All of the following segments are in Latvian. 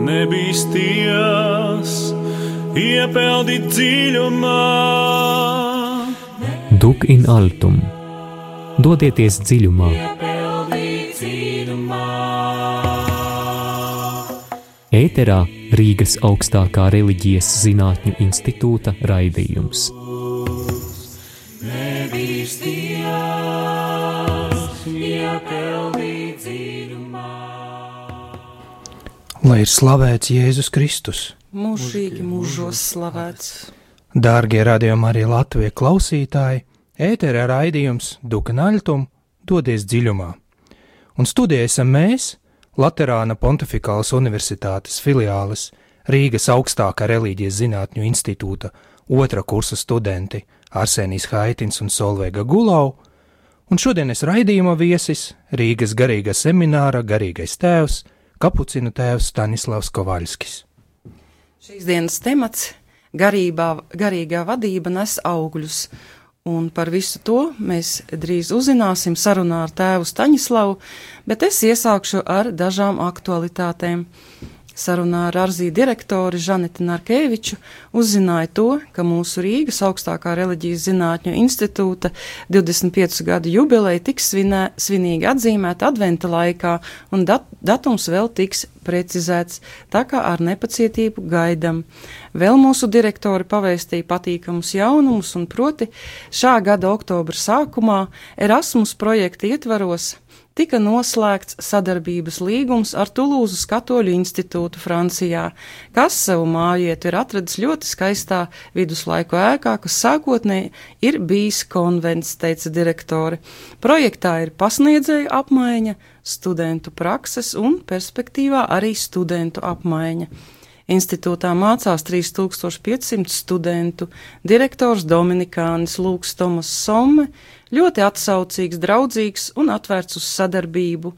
nebīsties, iepeldi dziļumā. Duc in altum, dodieties dziļumā. Ēterā Rīgas augstākā reliģijas zinātņu institūta raidījums. Lai ir slavēts Jēzus Kristus. Mūžīgi mūžos slavēts. Dārgie radījuma arī Latvijas klausītāji, ēterā raidījums Duc in altum, dodies dziļumā. Un studijā esam mēs, Laterāna Pontifikālas Universitātes filiāles Rīgas augstākā reliģijas zinātņu institūta otrā kursa studenti Arsenijs Haitins un Solveiga Gulau, un šodienas raidījuma viesis Rīgas garīga semināra garīgais tēvs, kapucinu tēvs Stanislavs Kovaļskis. Šīs dienas temats garīgā vadība nes augļus, un par visu to mēs drīz uzzināsim sarunā ar tēvu Staņislavu, bet es iesākšu ar dažām aktualitātēm. Sarunā ar Arzī direktori Žaneti Narkeviču uzzināja to, ka mūsu Rīgas augstākā reliģijas zinātņu institūta 25 gadu jubileja tiks svinīgi atzīmēta adventa laikā, un datums vēl tiks precizēts, tā kā ar nepacietību gaidam. Vēl mūsu direktori pavēstīja patīkamus jaunumus, un proti šā gada oktobra sākumā Erasmus projekta ietvaros tika noslēgts sadarbības līgums ar Tulūzas Katoļu institūtu Francijā, kas savu mājvietu ir atradis ļoti skaistā viduslaiku ēkā, kas sākotnēji ir bijis konvents, teica direktori. Projektā ir pasniedzēju apmaiņa, studentu prakses un perspektīvā arī studentu apmaiņa. Institūtā mācās 3500 studentu, direktors Dominikānis Lūks Tomas Somme, ļoti atsaucīgs, draudzīgs un atvērts uz sadarbību.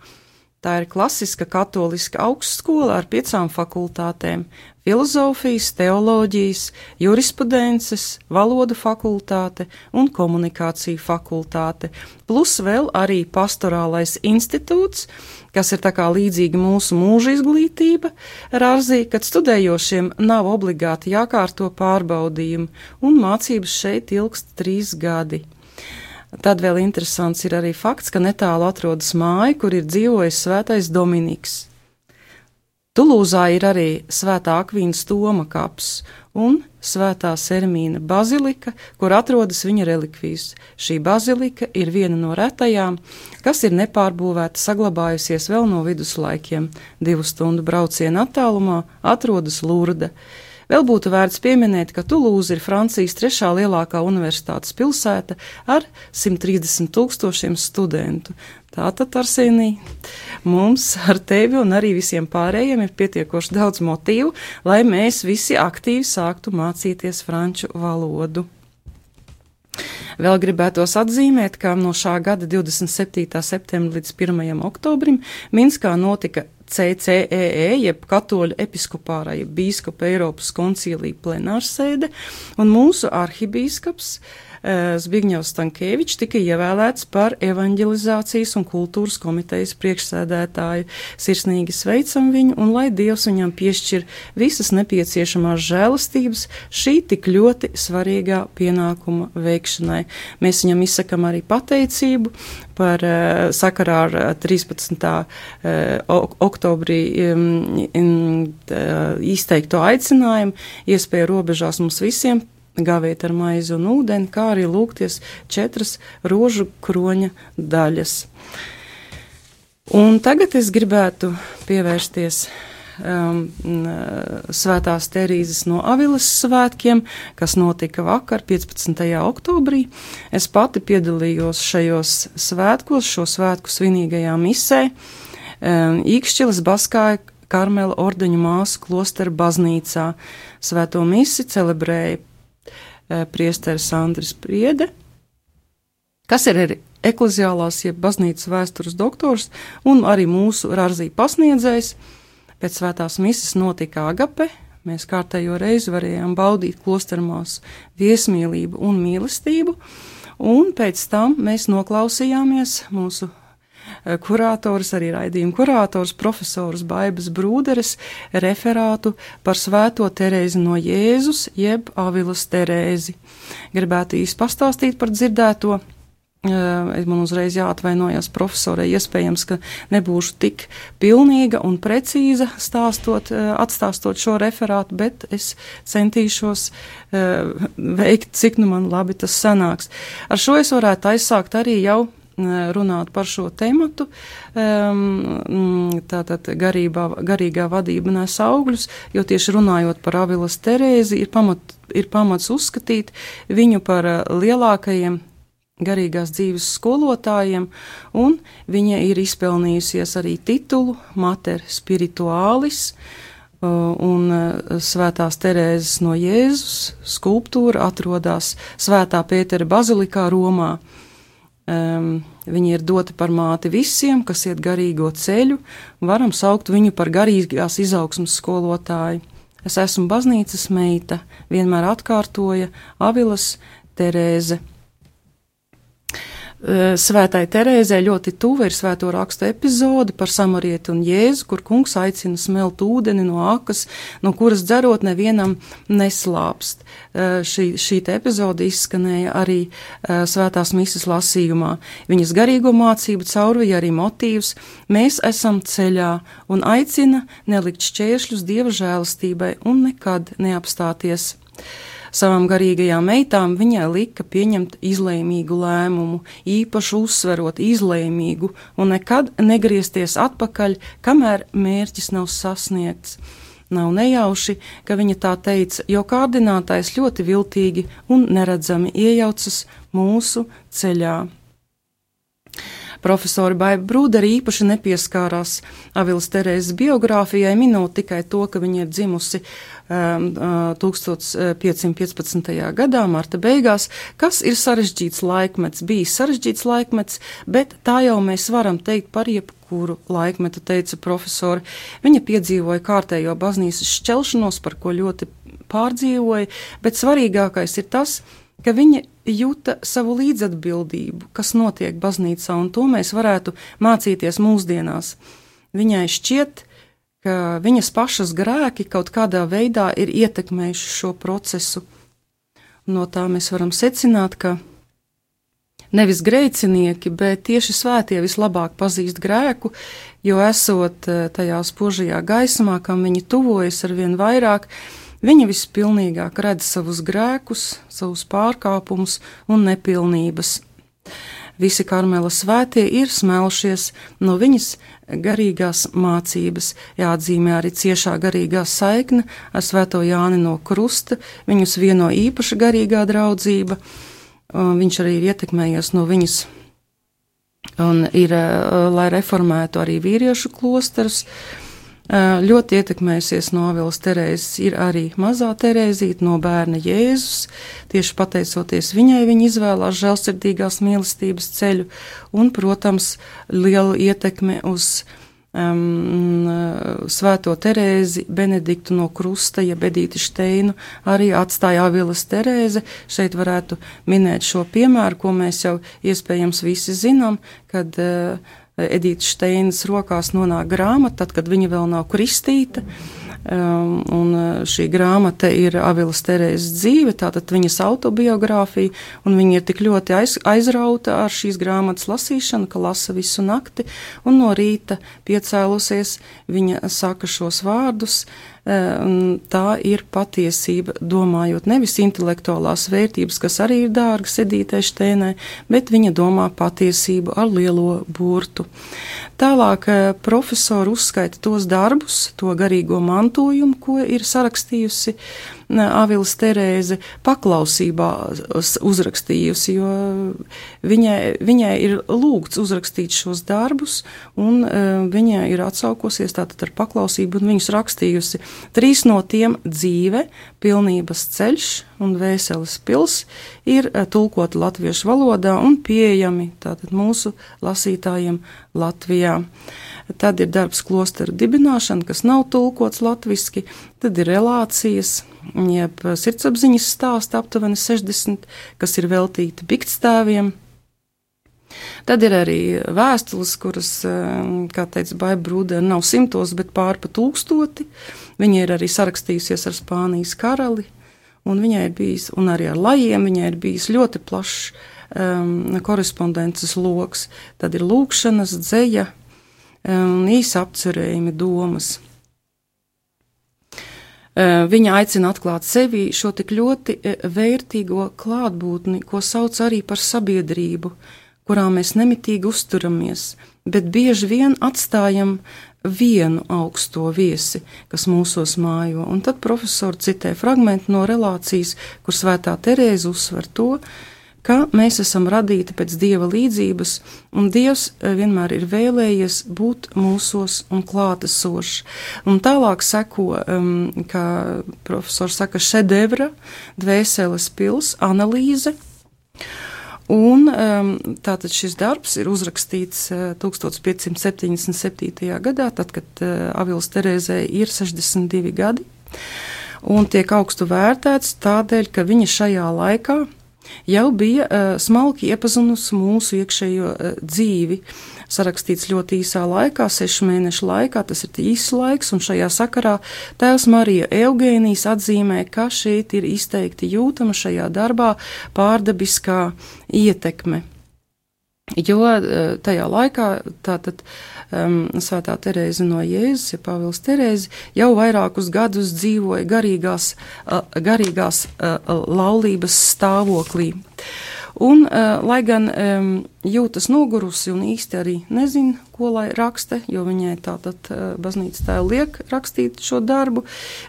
Tā ir klasiska katoliska augstskola ar 5 fakultātēm – filozofijas, teoloģijas, jurisprudences, valodu fakultāte un komunikāciju fakultāte, plus vēl arī pastorālais institūts, kas ir tā kā līdzīgi mūsu mūža izglītība, Rārzī, kad studējošiem nav obligāti jākārto pārbaudījumi, un mācības šeit ilgst 3 gadi. Tad vēl interesants ir arī fakts, ka netālu atrodas māja, kur ir dzīvojis svētais Dominiks. Tulūzā ir arī svētā Akvīnas Toma kaps un svētā Sermīna bazilika, kur atrodas viņa relikvijas. Šī bazilika ir viena no retajām, kas ir nepārbūvēta, saglabājusies vēl no viduslaikiem. 2 stundu brauciena attālumā atrodas Lurda. Vēl būtu vērts pieminēt, ka Tulūza ir Francijas 3. lielākā universitātes pilsēta ar 130 000 studentu. Tātad, Arsenij, mums ar tevi un arī visiem pārējiem ir pietiekoši daudz motīvu, lai mēs visi aktīvi sāktu mācīties franču valodu. Vēl gribētos atzīmēt, ka no šā gada 27. septembra līdz 1. oktobrim Minskā notika CCEE, jeb Katoļu episkopārā, jeb bīskapa Eiropas koncīlija plenārsēde, un mūsu arhibīskaps Zbigņevs Stankēvičs tika ievēlēts par evanģelizācijas un kultūras komitejas priekšsēdētāju. Sirsnīgi sveicam viņu, un lai Dievs viņam piešķir visas nepieciešamās žēlastības šī tik ļoti svarīgā pienākuma veikšanai. Mēs viņam izsakam arī pateicību par sakarā ar 13. oktobrī izteikto aicinājumu, iespēju robežās mums visiem gāvēt ar maizi un ūdeni, kā arī lūgties 4 rožu kroņa daļas. Un tagad es gribētu pievērsties Svētās Terīzes no Aviles svētkiem, kas notika vakar, 15. oktobrī. Es pati piedalījos šajos svētkos, šo svētku svinīgajā misē, Īkšķiles Baskāja Karmela ordeņu māsu klostera baznīcā. Svēto misi celebrēja priesteris Andris Priede, kas ir arī ekleziālās, jeb baznīcas vēstures doktors, un arī mūsu Rārzī pasniedzējs. Pēc svētās mises notika agape, mēs kārtējo reizi varējām baudīt klostermāsu viesmīlību un mīlestību, un pēc tam mēs noklausījāmies mūsu kurators, arī raidījuma kurators, profesors Baibas Brūderes referātu par Svēto Terēzi no Jēzus, jeb Avilas Terēzi. Gribētu īsti pastāstīt par dzirdēto. Man uzreiz jāatvainojas profesorai, iespējams, ka nebūšu tik pilnīga un precīza atstāstot šo referātu, bet es centīšos veikt, cik nu man labi tas sanāks. Ar šo es varētu aizsākt arī jau runāt par šo tematu, tātad garīgā vadība nes augļus, jo tieši runājot par Avilas Terēzi ir pamats uzskatīt viņu par lielākajiem garīgās dzīves skolotājiem, un viņa ir izpelnījusies arī titulu Mater Spiritualis, un Svētās Terēzes no Jēzus skulptūra atrodas Svētā Pētera bazilikā Romā. Viņa ir dota par māti visiem, kas iet garīgo ceļu, varam saukt viņu par garīgās izaugsmas skolotāju. Es esmu baznīcas meita, vienmēr atkārtoja Avilas Terēze. Svētai Terēzē ļoti tuva ir Svēto rakstu epizode par Samarieti un Jēzu, kur kungs aicina smelt ūdeni no akas, no kuras dzerot nevienam neslāpst. Šī epizode izskanēja arī Svētās mises lasījumā. Viņas garīgo mācību caurvija arī motīvs mēs esam ceļā un aicina nelikt šķēršļus Dieva žēlastībai un nekad neapstāties. Savām garīgajām meitām viņai lika pieņemt izlēmīgu lēmumu, īpaši uzsverot izlēmīgu un nekad negriezties atpakaļ, kamēr mērķis nav sasniegts. Nav nejauši, ka viņa tā teica, jo kārdinātājs ļoti viltīgi un neredzami iejaucas mūsu ceļā. Profesori Baiba Brūdere īpaši nepieskārās Avilas Terēzes biogrāfijai, minot tikai to, ka viņa ir dzimusi 1515. gadā, marta beigās, kas ir sarežģīts laikmets, bijis sarežģīts laikmets, bet tā jau mēs varam teikt par jebkuru laikmetu, teica profesori. Viņa piedzīvoja kārtējo baznīcas šķelšanos, par ko ļoti pārdzīvoja, bet svarīgākais ir tas, ka viņa jūta savu līdzatbildību, kas notiek baznīcā, un to mēs varētu mācīties mūsdienās. Viņai šķiet, ka viņas pašas grēki kaut kādā veidā ir ietekmējuši šo procesu. No tā mēs varam secināt, ka nevis grēcinieki, bet tieši svētie vislabāk pazīst grēku, jo esot tajā spožajā gaismā, kam viņi tuvojas arvien vairāk, viņa vispilnīgāk redz savus grēkus, savus pārkāpumus un nepilnības. Visi Karmela svētie ir smelšies no viņas garīgās mācības. Jāatzīmē arī ciešā garīgā saikne ar Svēto Jāni no Krusta, viņus vieno īpaša garīgā draudzība. Viņš arī ir ietekmējies no viņas un ir, lai reformētu arī vīriešu klosterus. Ļoti ietekmējusies no Avilas Terēzes ir arī mazā Terēzīte no bērna Jēzus. Tieši pateicoties viņai, viņa izvēlās žēlsirdīgās mīlestības ceļu un, protams, lielu ietekmi uz Svēto Terēzi, Benediktu no Krusta, ja Edīti Šteinu arī atstāja Avilas Terēze. Šeit varētu minēt šo piemēru, ko mēs jau iespējams visi zinām, kad Edītas Šteinas rokās nonāk grāmata, tad, kad viņa vēl nav kristīta, un šī grāmata ir Avilas Terēzes dzīve, tātad viņas autobiogrāfija, un viņa ir tik ļoti aizrauta ar šīs grāmatas lasīšanu, ka lasa visu nakti, un no rīta piecēlusies, viņa saka šos vārdus, tā ir patiesība, domājot nevis intelektuālās vērtības, kas arī ir dārgas Edītei Šteinai, bet viņa domā patiesību ar lielo burtu. Tālāk profesori uzskaita tos darbus, to garīgo mantojumu, ko ir sarakstījusi Avilas Terēze, paklausībā uzrakstījusi, jo viņai ir lūgts uzrakstīt šos darbus, un viņai ir atsaukosies tātad ar paklausību, un viņus rakstījusi. 3 no tiem dzīve, pilnības ceļš un Vēseles pils ir tulkoti latviešu valodā un pieejami tātad mūsu lasītājiem Latvijā. Tad ir darbs klosteru dibināšana, kas nav tulkots latviski, tad ir relācijas, jeb sirdsapziņas stāsti aptuveni 60, kas ir veltīti biktstāviem. Tad ir arī vēstules, kuras, kā teica Baiba Brūdere, nav 100, bet pār pa 1000. Viņa ir arī sarakstījusies ar Spānijas karali, un viņai ir bijis, un arī ar lajiem, viņai ir bijis ļoti plašs korespondences loks. Tad ir lūkšanas, dzeja, īsa apcerējumi, domas. Viņa aicina atklāt sevi šo tik ļoti vērtīgo klātbūtni, ko sauc arī par sabiedrību, kurā mēs nemitīgi uzturamies, bet bieži vien atstājam vienu augsto viesi, kas mūsos mājo. Un tad profesori citē fragmentu no relācijas, kur Svētā Terēze uzsver to, ka mēs esam radīti pēc Dieva līdzības, un Dievs vienmēr ir vēlējies būt mūsos un klātesošs. Un tālāk seko, kā profesors saka, šedevra, dvēseles pils, analīze. Un tātad šis darbs ir uzrakstīts 1577. gadā, tad, kad Avils Terēzei ir 62 gadi, un tiek augstu vērtēts tādēļ, ka viņa šajā laikā jau bija smalki iepazinusi mūsu iekšējo dzīvi, sarakstīts ļoti īsā laikā, 6 mēnešu laikā, tas ir īsts laiks, un šajā sakarā tēvs Marija Eugēnijas atzīmē, ka šeit ir izteikti jūtama šajā darbā pārdabiskā ietekme. Jo tajā laikā tātad Svētā Terēze no Jēzus, ja Pāvils Terēze, jau vairākus gadus dzīvoja garīgās laulības stāvoklī. Un, lai gan jūtas nogurusi un īsti arī nezina, ko lai raksta, jo viņai tātad baznīcas tēva liek rakstīt šo darbu,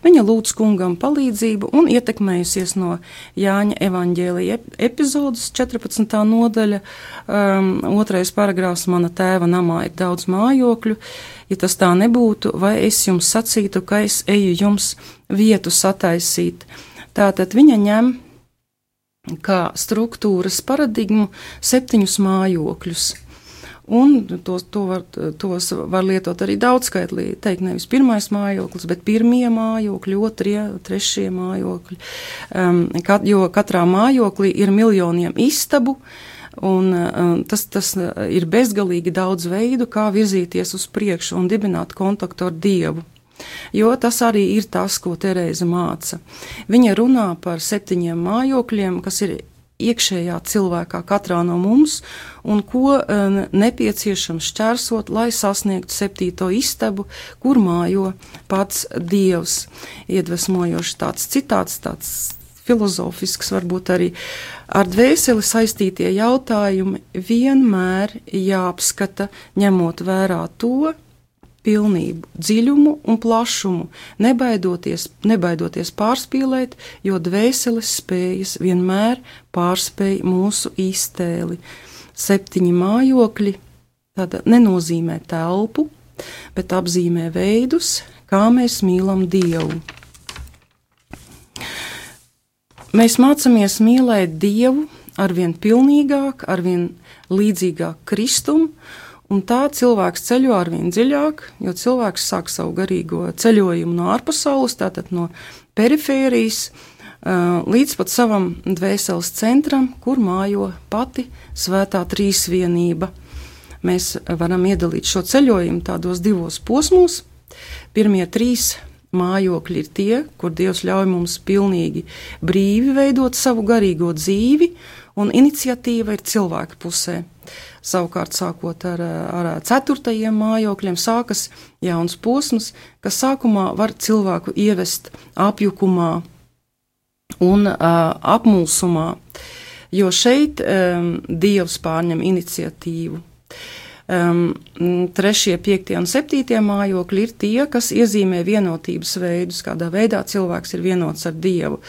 viņa lūdz kungam palīdzību un ietekmējusies no Jāņa evaņģēlija epizodes 14. nodaļa, 2. paragrāfs, mana tēva namā ir daudz mājokļu, ja tas tā nebūtu, vai es jums sacītu, ka es eju jums vietu sataisīt. Tātad viņa ņem kā struktūras paradigmu 7 mājokļus. Un tos var lietot arī daudzskaitlī, teikt nevis pirmais mājoklis, bet pirmie mājokļi, 2., 3. mājokļi, jo katrā mājoklī ir miljoniem istabu, un tas ir bezgalīgi daudz veidu, kā virzīties uz priekšu un dibināt kontaktu ar Dievu. Jo tas arī ir tas, ko Terēze māca. Viņa runā par 7 mājokļiem, kas ir iekšējā cilvēkā katrā no mums, un ko nepieciešams šķērsot, lai sasniegtu 7. istabu, kur mājo pats Dievs. Iedvesmojoši tāds citāts, tāds filozofisks, varbūt arī ar dvēseli saistītie jautājumi vienmēr jāapskata, ņemot vērā to pilnību, dziļumu un plašumu, nebaidoties pārspīlēt, jo dvēseles spējas vienmēr pārspēj mūsu iztēli. 7 mājokļi tāda nenozīmē telpu, bet apzīmē veidus, kā mēs mīlam Dievu. Mēs mācamies mīlēt Dievu arvien pilnīgāk, arvien līdzīgāk Kristum, un tā cilvēks ceļo arvien dziļāk, jo cilvēks sāk savu garīgo ceļojumu no ārpasaules, tātad no perifērijas, līdz pat savam dvēseles centram, kur mājo pati svētā trīsvienība. Mēs varam iedalīt šo ceļojumu tādos 2 posmos. Pirmie 3 mājokļi ir tie, kur Dievs ļauj mums pilnīgi brīvi veidot savu garīgo dzīvi, un iniciatīva ir cilvēka pusē. Savukārt, sākot ar 4. mājokļiem, sākas jauns posms, kas sākumā var cilvēku ievest apjukumā un apmulsumā, jo šeit Dievs pārņem iniciatīvu. 3., 5. un 7. mājokļi ir tie, kas iezīmē vienotības veidus, kādā veidā cilvēks ir vienots ar Dievu.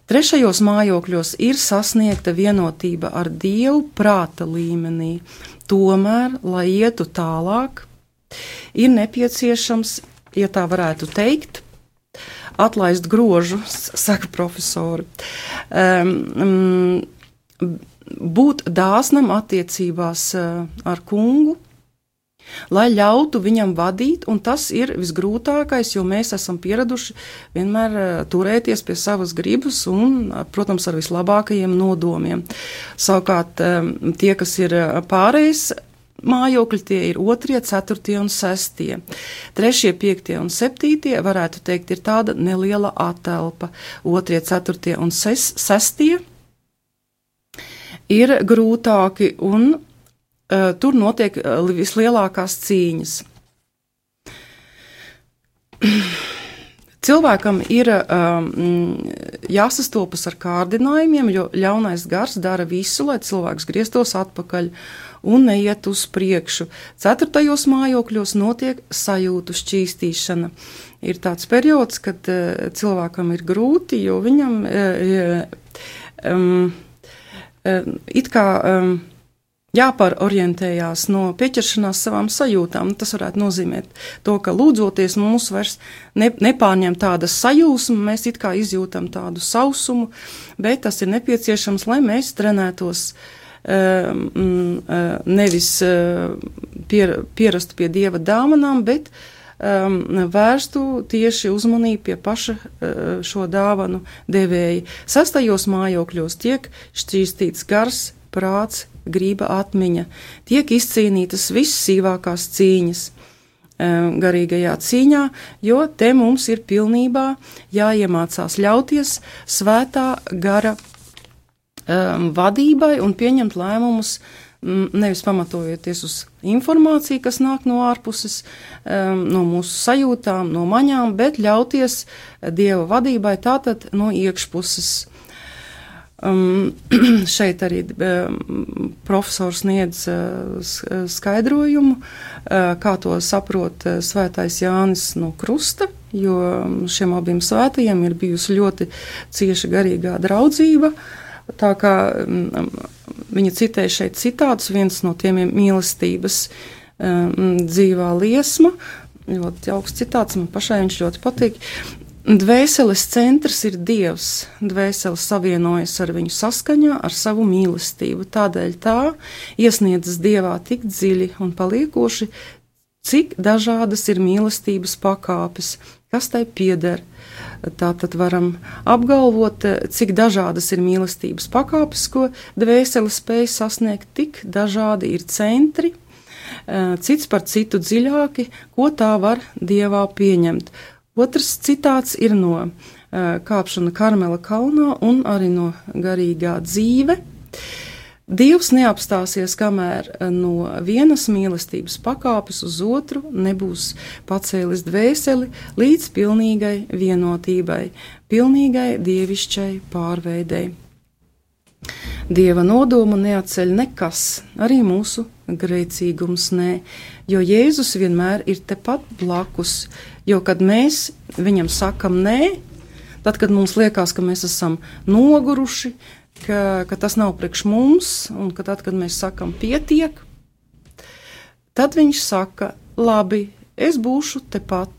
3. mājokļos ir sasniegta vienotība ar Dievu prāta līmenī. Tomēr, lai ietu tālāk, ir nepieciešams, ja tā varētu teikt, atlaist grožu, saka profesori, būt dāsnam attiecībās ar kungu, lai ļautu viņam vadīt, un tas ir visgrūtākais, jo mēs esam pieraduši vienmēr turēties pie savas gribas un, protams, ar vislabākajiem nodomiem. Savukārt, tie, kas ir pārējais mājokļi, tie ir 2., 4. un 6. 3., 5. un 7. varētu teikt, ir tāda neliela atelpa. 2., 4. un 6. ir grūtāki un tur notiek vislielākās cīņas. Cilvēkam ir jāsastopas ar kārdinājumiem, jo ļaunais gars dara visu, lai cilvēks grieztos atpakaļ un neiet uz priekšu. 4. mājokļos notiek sajūtu šķīstīšana. Ir tāds periods, kad cilvēkam ir grūti, jo viņam it kā jāpārorientējās no pieķeršanās savām sajūtām. Tas varētu nozīmēt to, ka lūdzoties mums vairs nepārņem tāda sajūsma, mēs it kā izjūtam tādu sausumu, bet tas ir nepieciešams, lai mēs trenētos nevis pierastu pie Dieva dāvanām, bet vērstu tieši uzmanību pie paša šo dāvanu devēja. 6. mājokļos tiek šķīstīts gars, prāts, griba, atmiņa, tiek izcīnītas vissīvākās cīņas garīgajā cīņā, jo te mums ir pilnībā jāiemācās ļauties svētā gara vadībai un pieņemt lēmumus, nevis pamatojoties uz informāciju, kas nāk no ārpuses, no mūsu sajūtām, no maņām, bet ļauties Dieva vadībai tātad no iekšpuses. Šeit arī profesors sniedz skaidrojumu, kā to saprot svētais Jānis no Krusta, jo šiem abiem svētajiem ir bijusi ļoti cieša garīgā draudzība. Tā kā viņa citē šeit citātus, viens no tiem ir mīlestības dzīvā liesma, ļoti augsts citāts, man pašai viņš ļoti patīk. Dvēseles centrs ir Dievs, dvēsele savienojas ar viņu saskaņā ar savu mīlestību, tādēļ tā iesniedzas Dievā tik dziļi un paliekoši, cik dažādas ir mīlestības pakāpes, kas tai pieder. Tātad varam apgalvot, cik dažādas ir mīlestības pakāpes, ko dvēsele spēj sasniegt, tik dažādi ir centri, cits par citu dziļāki, ko tā var Dievā pieņemt. Otrs citāts ir no kāpšana Karmela kalnā un arī no garīgā dzīve. Dievs neapstāsies, kamēr no vienas mīlestības pakāpes uz otru nebūs pacēlis dvēseli līdz pilnīgai vienotībai, pilnīgai dievišķai pārveidei. Dieva nodomu neatceļ nekas, arī mūsu grēcīgums nē, jo Jēzus vienmēr ir tepat blakus, jo kad mēs viņam sakam nē, tad, kad mums liekas, ka mēs esam noguruši, ka tas nav priekš mums, un ka tad, kad mēs sakam pietiek, tad viņš saka, labi, es būšu tepat,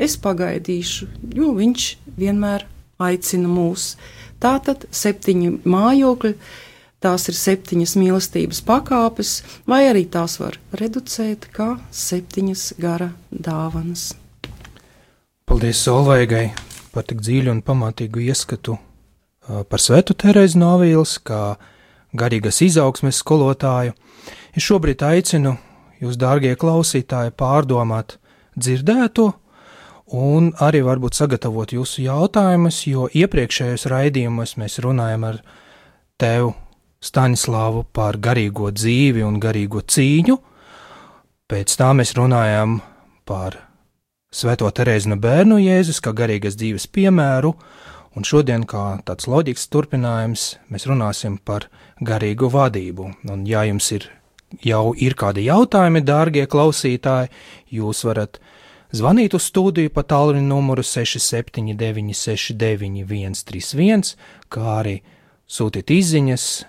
es pagaidīšu, jo viņš vienmēr aicina mūs. Tātad 7 mājokļi, tās ir 7 mīlestības pakāpes, vai arī tās var reducēt kā 7 gara dāvanas. Paldies Solveigai par tik dziļu un pamatīgu ieskatu par Svēto Terēzi no Avīles, kā garīgas izaugsmes skolotāju. Es šobrīd aicinu jūs, dārgie klausītāji, pārdomāt dzirdēto un arī varbūt sagatavot jūsu jautājumus, jo iepriekšējos raidījumos mēs runājam ar tevu, Staņislāvu, par garīgo dzīvi un garīgo cīņu. Pēc tā mēs runājam par Svēto Terēzi no Bērnu Jēzus kā garīgas dzīves piemēru, un šodien, kā tāds loģisks turpinājums, mēs runāsim par garīgu vadību. Un ja jums jau ir kādi jautājumi, dārgie klausītāji, jūs varat zvanīt uz studiju pa tālruņa numuru 679 69 131, kā arī sūtīt izziņas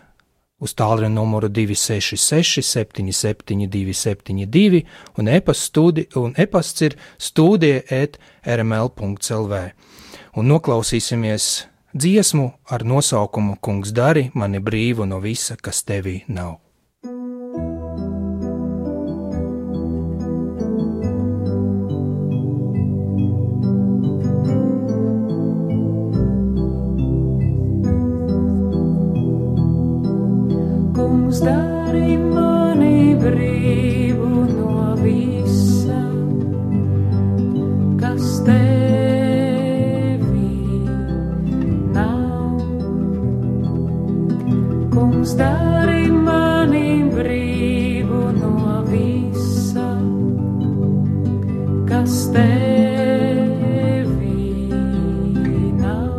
uz tālruņa numuru 266 77 272 un e-pasts ir studija@rml.lv. Un noklausīsimies dziesmu ar nosaukumu Kungs dari mani brīvu no visa, kas tevī nav. kas tevī nav. Kungs, dari mani brīvu no visa, kas tevī nav.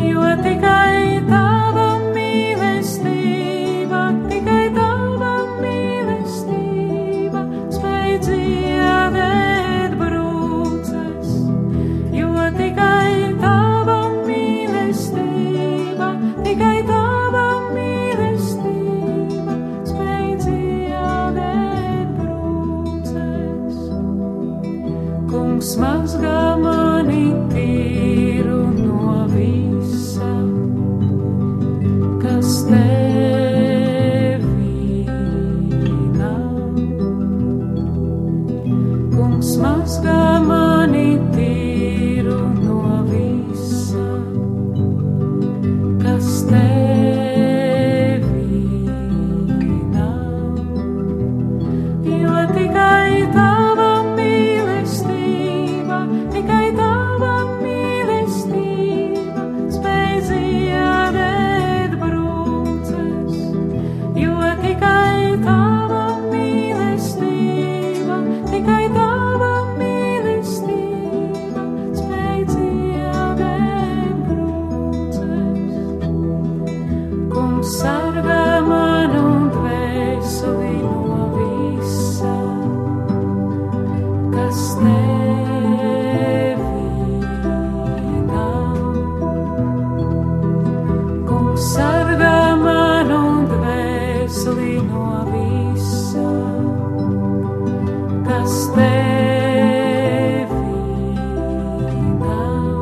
Jo tikai tava mīlestība, tikai tava mīlestība spēj dziedēt brūces. Jo tikai tava mīlestība, tikai tava mīlestība spēj dziedēt brūces. Kungs mazgā mani tīru no visa, kas tevī nav. Kungs mazgā mani tīru no visa, kas tevī nav. Jo tikai tava mīlestība, tikai tava mīlestība spēj dziedēt brūces. Jo tikai tava mīlestība, tikai tava mīlestība spēj dziedēt brūces. Kungs sargā manu dvēseli no visa, kas tevī nav. Kungs sargā manu dvēseli no visa, kas tevī nav.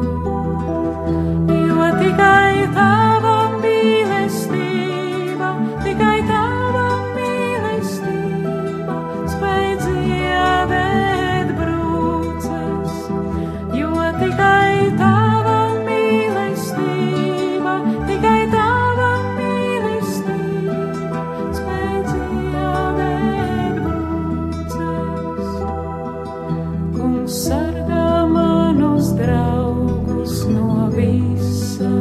Jo tikai tava mīlestība, tikai tava mīlestība spēj dziedēt brūces. Jo tikai tava mīlestība, tikai tava mīlestība spēj dziedēt brūces. Kungs sargā manus draugus no visa,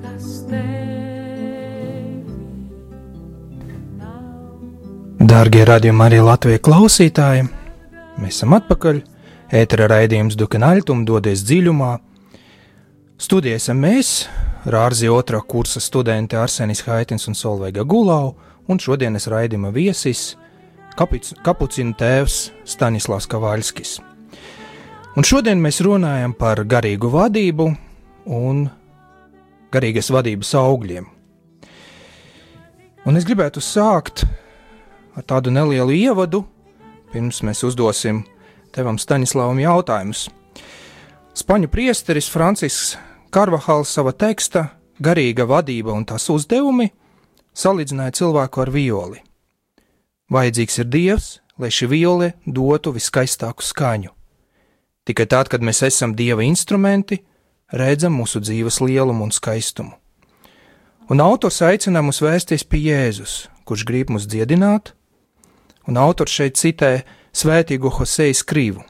kas tevī nav. Dārgie radījuma arī Latvijas klausītāji, mēs esam atpakaļ. Ētera raidījums Dukenaļtum dodies dziļumā. Studijā esam mēs, Rārzi 2. kursa studenti Arsenis Haitins un Solveiga Gulau, un šodienas raidījuma viesis kapucinu tēvs Staņislavs Kavaļskis. Un šodien mēs runājam par garīgu vadību un garīgas vadības augļiem. Un es gribētu sākt ar tādu nelielu ievadu, pirms mēs uzdosim tevam Staņislavam jautājumus. Spaņu priesteris Francisks Karvahals sava teksta Garīga vadība un tās uzdevumi salīdzināja cilvēku ar violi. Vajadzīgs ir Dievs, lai šī viole dotu viskaistāku skaņu. Tikai tad, kad mēs esam Dieva instrumenti, redzam mūsu dzīves lielumu un skaistumu. Un autors aicina mūs vērsties pie Jēzus, kurš grib mūs dziedināt, un autors šeit citē svētīgo Hosei Skrivu.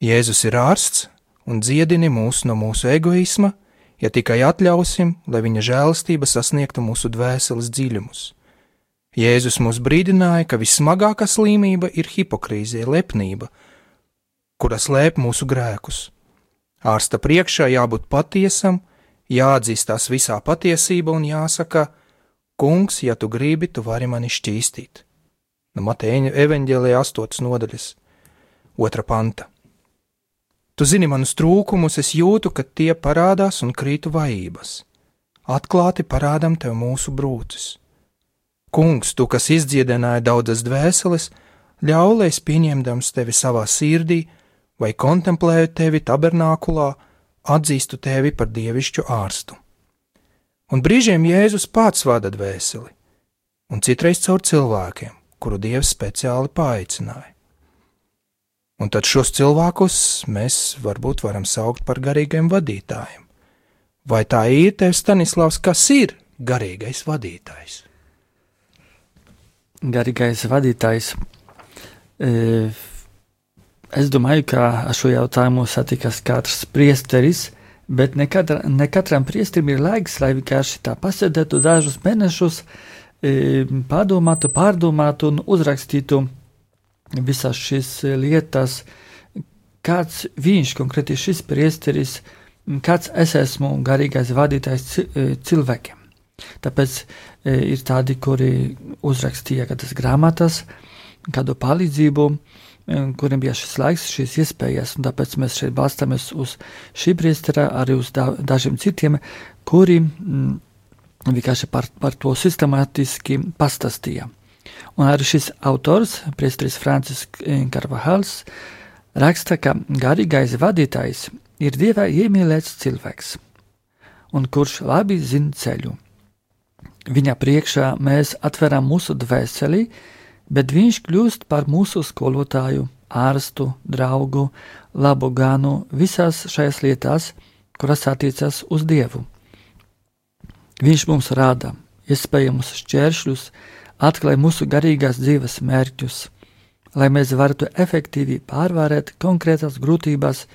Jēzus ir ārsts un dziedini mūs no mūsu egoisma, ja tikai atļausim, lai viņa žēlastība sasniegtu mūsu dvēseles dziļumus. Jēzus mūs brīdināja, ka vissmagākā slimība ir hipokrīzija, lepnība, kura slēp mūsu grēkus. Ārsta priekšā jābūt patiesam, jāatzīstās visā patiesība un jāsaka: Kungs, ja tu gribi, tu vari mani šķīstīt. No Mateja evaņģēlijā 8. nodaļas 2. panta. Tu zini manus trūkumus, es jūtu, ka tie parādās un krītu vājības. Atklāti parādam tev mūsu brūces. Kungs, tu, kas izdziedināja daudzas dvēseles, ļauj, lai es pieņemdams tevi savā sirdī vai kontemplēju tevi tabernākulā, atzīstu tevi par dievišķu ārstu. Un brīžiem Jēzus pats vada dvēseli, un citreiz caur cilvēkiem, kuru Dievs speciāli paaicināja. Un tad šos cilvēkus mēs varbūt varam saukt par garīgiem vadītājiem. Vai tā ir, tev Staņislavs, kas ir garīgais vadītājs? Garīgais vadītājs. Es domāju, ka ar šo jautājumu satikas katrs priesteris, bet ne katram priesterim ir laiks, lai vienkārši tā pasēdētu dažus mēnešus, pārdomātu un uzrakstītu visas šīs lietas, kāds viņš, konkrēti šis priesteris, kāds es esmu garīgais vadītājs cilvēkiem. Tāpēc ir tādi, kuri uzrakstīja kādas grāmatas, kādu palīdzību, kuriem bija šis laiks, šīs iespējas, un tāpēc mēs šeit balstāmies uz šī priestera, arī uz dažiem citiem, kuri vienkārši par to sistemātiski pastāstīja. Un arī šis autors, priesteris Francisks Carvajals, raksta, ka garīgais vadītājs ir Dieva iemīlēts cilvēks, un kurš labi zina ceļu. Viņa priekšā mēs atveram mūsu dvēseli, bet viņš kļūst par mūsu skolotāju, ārstu, draugu, labu ganu visās šajās lietās, kuras attiecas uz Dievu. Viņš mums rāda iespējamus šķēršļus, atklāj mūsu garīgās dzīves mērķus, lai mēs varētu efektīvi pārvarēt konkrētas grūtības,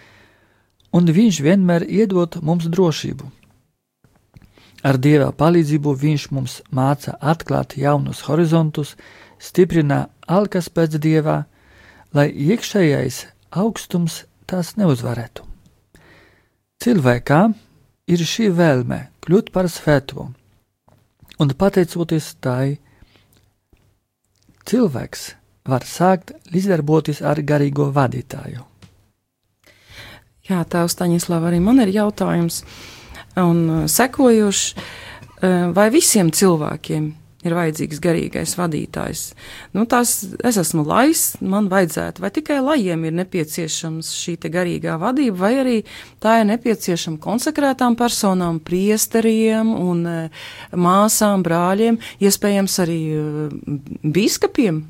un viņš vienmēr iedod mums drošību. Ar Dieva palīdzību viņš mums māca atklāt jaunus horizontus, stiprina alkas pēc Dievā, lai iekšējais augstums tās neuzvarētu. Cilvēkā ir šī vēlme kļūt par svēto, un pateicoties tai, cilvēks var sākt līdzdarboties ar garīgo vadītāju. Jā, tēvs Staņislav, arī man ir jautājums, un sekojuši, vai visiem cilvēkiem ir vajadzīgs garīgais vadītājs. Es esmu lais, man vajadzētu, vai tikai lajiem ir nepieciešams šī te garīgā vadība, vai arī tā ir nepieciešama konsekrētām personām, priesteriem un māsām, brāļiem, iespējams arī bīskapiem?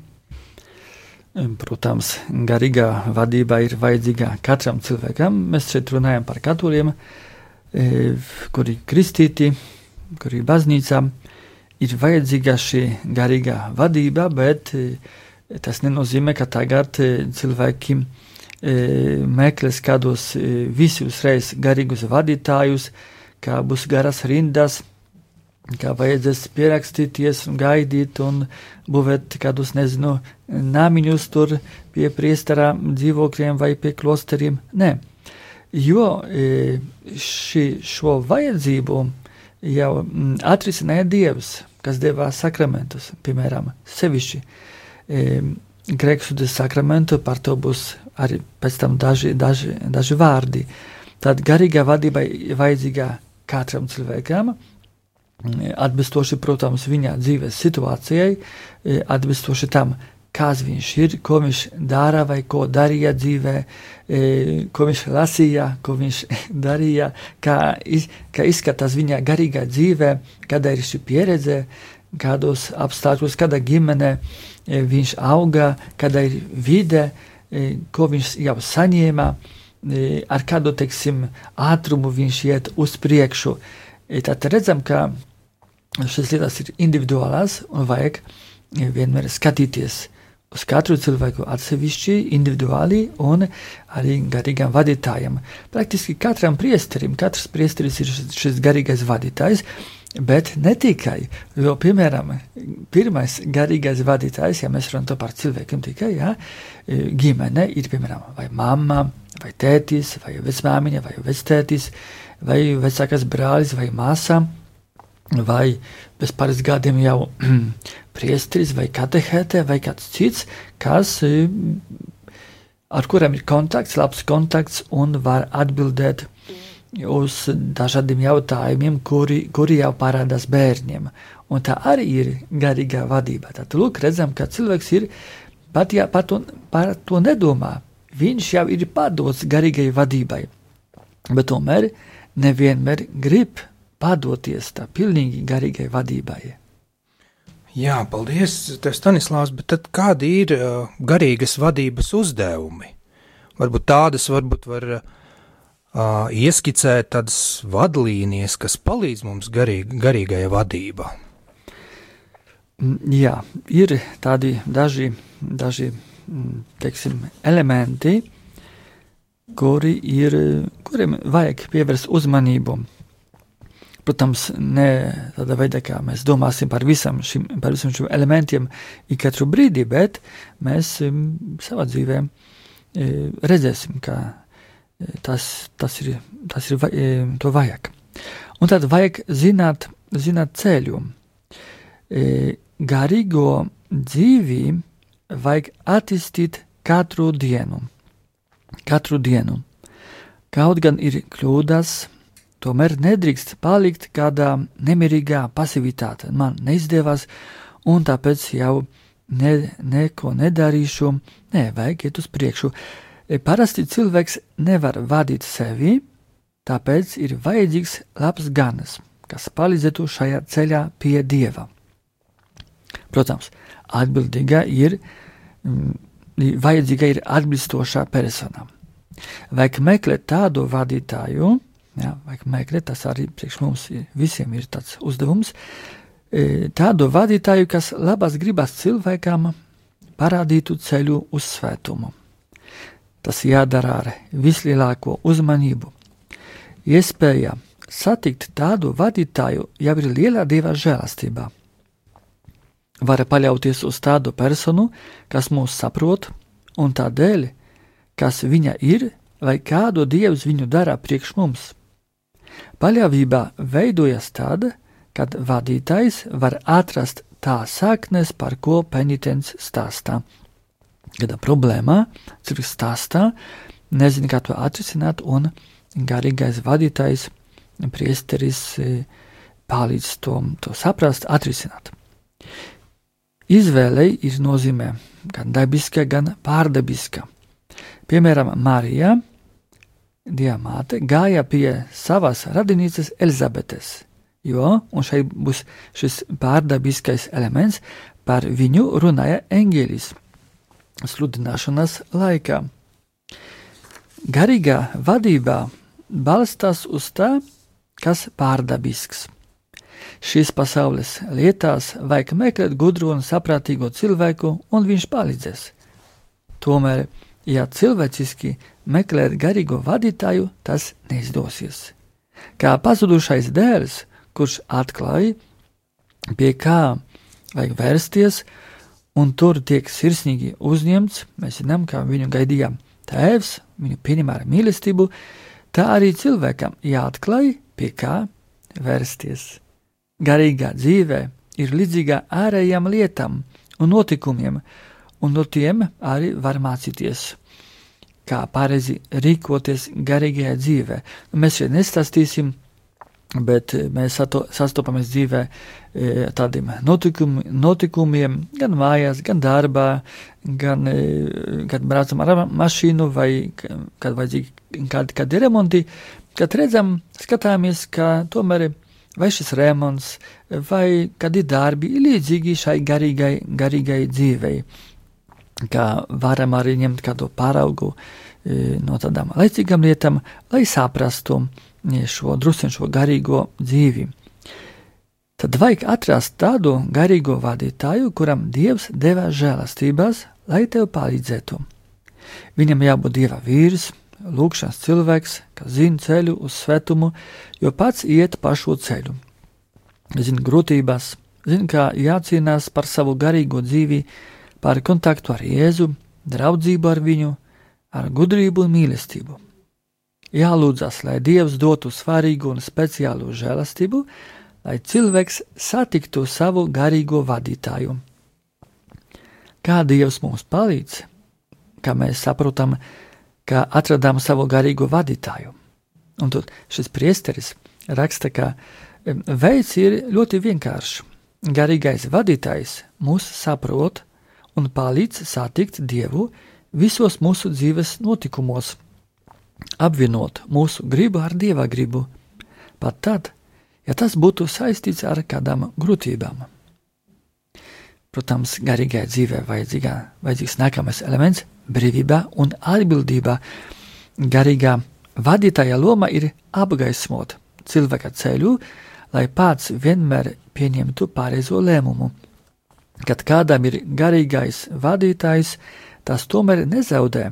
Protams, garīgā vadība ir vajadzīga katram cilvēkam. Mēs šeit runājam par katoļiem, kuri kristīti, kuri baznīcām. Ir vajadzīga šī garīgā vadība, bet tas nenozīmē, ka tagad cilvēki meklēs kādos visi uzreiz garīgus vadītājus, kā būs garas rindas, kā vajadzēs pierakstīties un gaidīt un būvēt kādus, namiņus tur pie priestera dzīvokļiem vai pie klosteriem. Nē, jo šo vajadzību jau atrisināja Dievs, kas deva sakramentus, piemēram, sevišķi grēksūdzes sakramentu, par to būs arī pēc tam daži vārdi. Tad garīgā vadība vajadzīga katram cilvēkam, atbilstoši, protams, viņa dzīves situācijai, atbilstoši tam, kas viņš ir, ko viņš dara vai ko darīja dzīvē, ko viņš lasīja, ko viņš darīja, kā izskatās viņa garīgā dzīvē, kāda ir šī pieredze, kādos apstākļos, kāda ģimene viņš auga, kāda ir vide, ko viņš jau saņēma, ar kādu, ātrumu viņš iet uz priekšu. Tad redzam, ka šīs lietas ir individuālās un vajag vienmēr skatīties uz katru cilvēku atsevišķi, individuāli un arī garīgam vadītājam. Praktiski katram priesterim, katrs priesteris ir šis garīgais vadītājs, bet ne tikai, jo, piemēram, pirmais garīgais vadītājs, ja mēs runājam par cilvēkiem tikai, ģimene ir, piemēram, vai mamma, vai tētis, vai vecmāmiņa, vai vectētis, vai vecākais brālis, vai māsa, vai pēc pāris gadiem jau priesteris, vai katehēte, vai kāds cits, ar kuriem ir kontakts, labs kontakts un var atbildēt uz dažādiem jautājumiem, kuri jau parādās bērniem. Un tā arī ir garīgā vadība. Tad, lūk, redzam, ka cilvēks ir, pat ja par to nedomā, viņš jau ir padots garīgai vadībai, bet tomēr nevienmēr grib padoties tā pilnīgi garīgai vadībai. Jā, paldies, Stanislavs, bet tad kādi ir garīgas vadības uzdevumi? Varbūt var ieskicēt tādas vadlīnijas, kas palīdz mums garīgajā vadībā. Jā, ir tādi daži elementi, kuriem vajag pievērst uzmanību. Protams, ne tādā veidā, kā mēs domāsim par visam šim elementiem ik katru brīdi, bet mēs savā dzīvē redzēsim, ka tas ir to vajag. Un tad vajag zināt ceļu. Garīgo dzīvi vajag attīstīt katru dienu. Kaut gan ir kļūdas, tomēr nedrīkst palikt kādā nemierīgā pasivitāte. Man neizdevās, un tāpēc jau neko nedarīšu. Nē, vajag iet uz priekšu. Parasti cilvēks nevar vadīt sevi, tāpēc ir vajadzīgs labs ganas, kas palīdzētu šajā ceļā pie Dieva. Protams, vajadzīga ir atbilstošā persona. Vajag meklēt tādu vadītāju, tas arī priekš mums visiem ir tāds uzdevums, tādu vadītāju, kas labas gribas cilvēkam parādītu ceļu uz svētumu. Tas jādara ar vislielāko uzmanību. Iespēja satikt tādu vadītāju jau ir lielā Dieva žēlastībā. Var paļauties uz tādu personu, kas mūs saprot, un tādēļ, kas viņa ir, vai kādu Dievs viņu dara priekš mums. Paļāvība veidojas tad, kad vadītājs var atrast tā saknes, par ko penitents stāstā. Kādā problēmā cilvēks stāstā, nezina, kā to atrisināt, un garīgais vadītājs, priesteris, palīdz to saprast, atrisināt. Izvēlei ir nozīmē gan dabiska, gan pārdabiska. Piemēram, Marija, Dieva māte, gāja pie savas radinīces Elizabetes, un šeit būs šis pārdabiskais elements, par viņu runāja eņģelis sludināšanas laikā. Garīgā vadībā balstās uz tā, kas pārdabisks. Šīs pasaules lietās vajag meklēt gudru un saprātīgo cilvēku, un viņš palīdzēs. Tomēr, ja cilvēciski meklēt garīgo vadītāju, tas neizdosies. Kā pazudušais dēls, kurš atklāja, pie kā vajag vērsties, un tur tiek sirsnīgi uzņemts, mēs zinām, kā viņu gaidīja tēvs, viņu pieņem ar mīlestību, tā arī cilvēkam jāatklāj, pie kā vērsties. Garīgā dzīvē ir līdzīga ārējām lietām un notikumiem, un no tiem arī var mācīties, kā pareizi rīkoties garīgajā dzīvē. Mēs šeit nestāstīsim, bet mēs sastopamies dzīvē tādiem notikumiem, gan mājās, gan darbā, gan kad braucam ar mašīnu vai kad vajadzīgi kādi remonti, kad redzam, skatāmies, ka tomēr vai šis remonts, vai kādi darbi ir līdzīgi šai garīgai dzīvei, kā varam arī ņemt kādu paraugu no tādām laicīgām lietām, lai saprastu šo garīgo dzīvi. Tad vajag atrast tādu garīgo vadītāju, kuram Dievs deva žēlastībās, lai tev palīdzētu. Viņam jābūt Dieva vīrs, lūgšanas cilvēks, kas zina ceļu uz svētumu, jo pats iet pa šo ceļu. Zina grūtības, zina, kā jācīnās par savu garīgo dzīvi, par kontaktu ar Jēzu, draudzību ar viņu, ar gudrību un mīlestību. Jālūdzas, lai Dievs dotu svarīgu un speciālu žēlastību, lai cilvēks satiktu savu garīgo vadītāju. Kā Dievs mums palīdz, kā mēs saprotam, kā atradām savu garīgo vadītāju. Un tad šis priesteris raksta, ka veids ir ļoti vienkāršs. Garīgais vadītājs mūs saprot un palīdz satikt Dievu visos mūsu dzīves notikumos, apvienot mūsu gribu ar Dieva gribu, pat tad, ja tas būtu saistīts ar kādām grūtībām. Protams, garīgai dzīvē vajadzīgs nākamais elements – brīvība un atbildība. Garīgā vadītāja loma ir apgaismot cilvēka ceļu, lai pats vienmēr pieņemtu pareizo lēmumu. Kad kādam ir garīgais vadītājs, tas tomēr nezaudē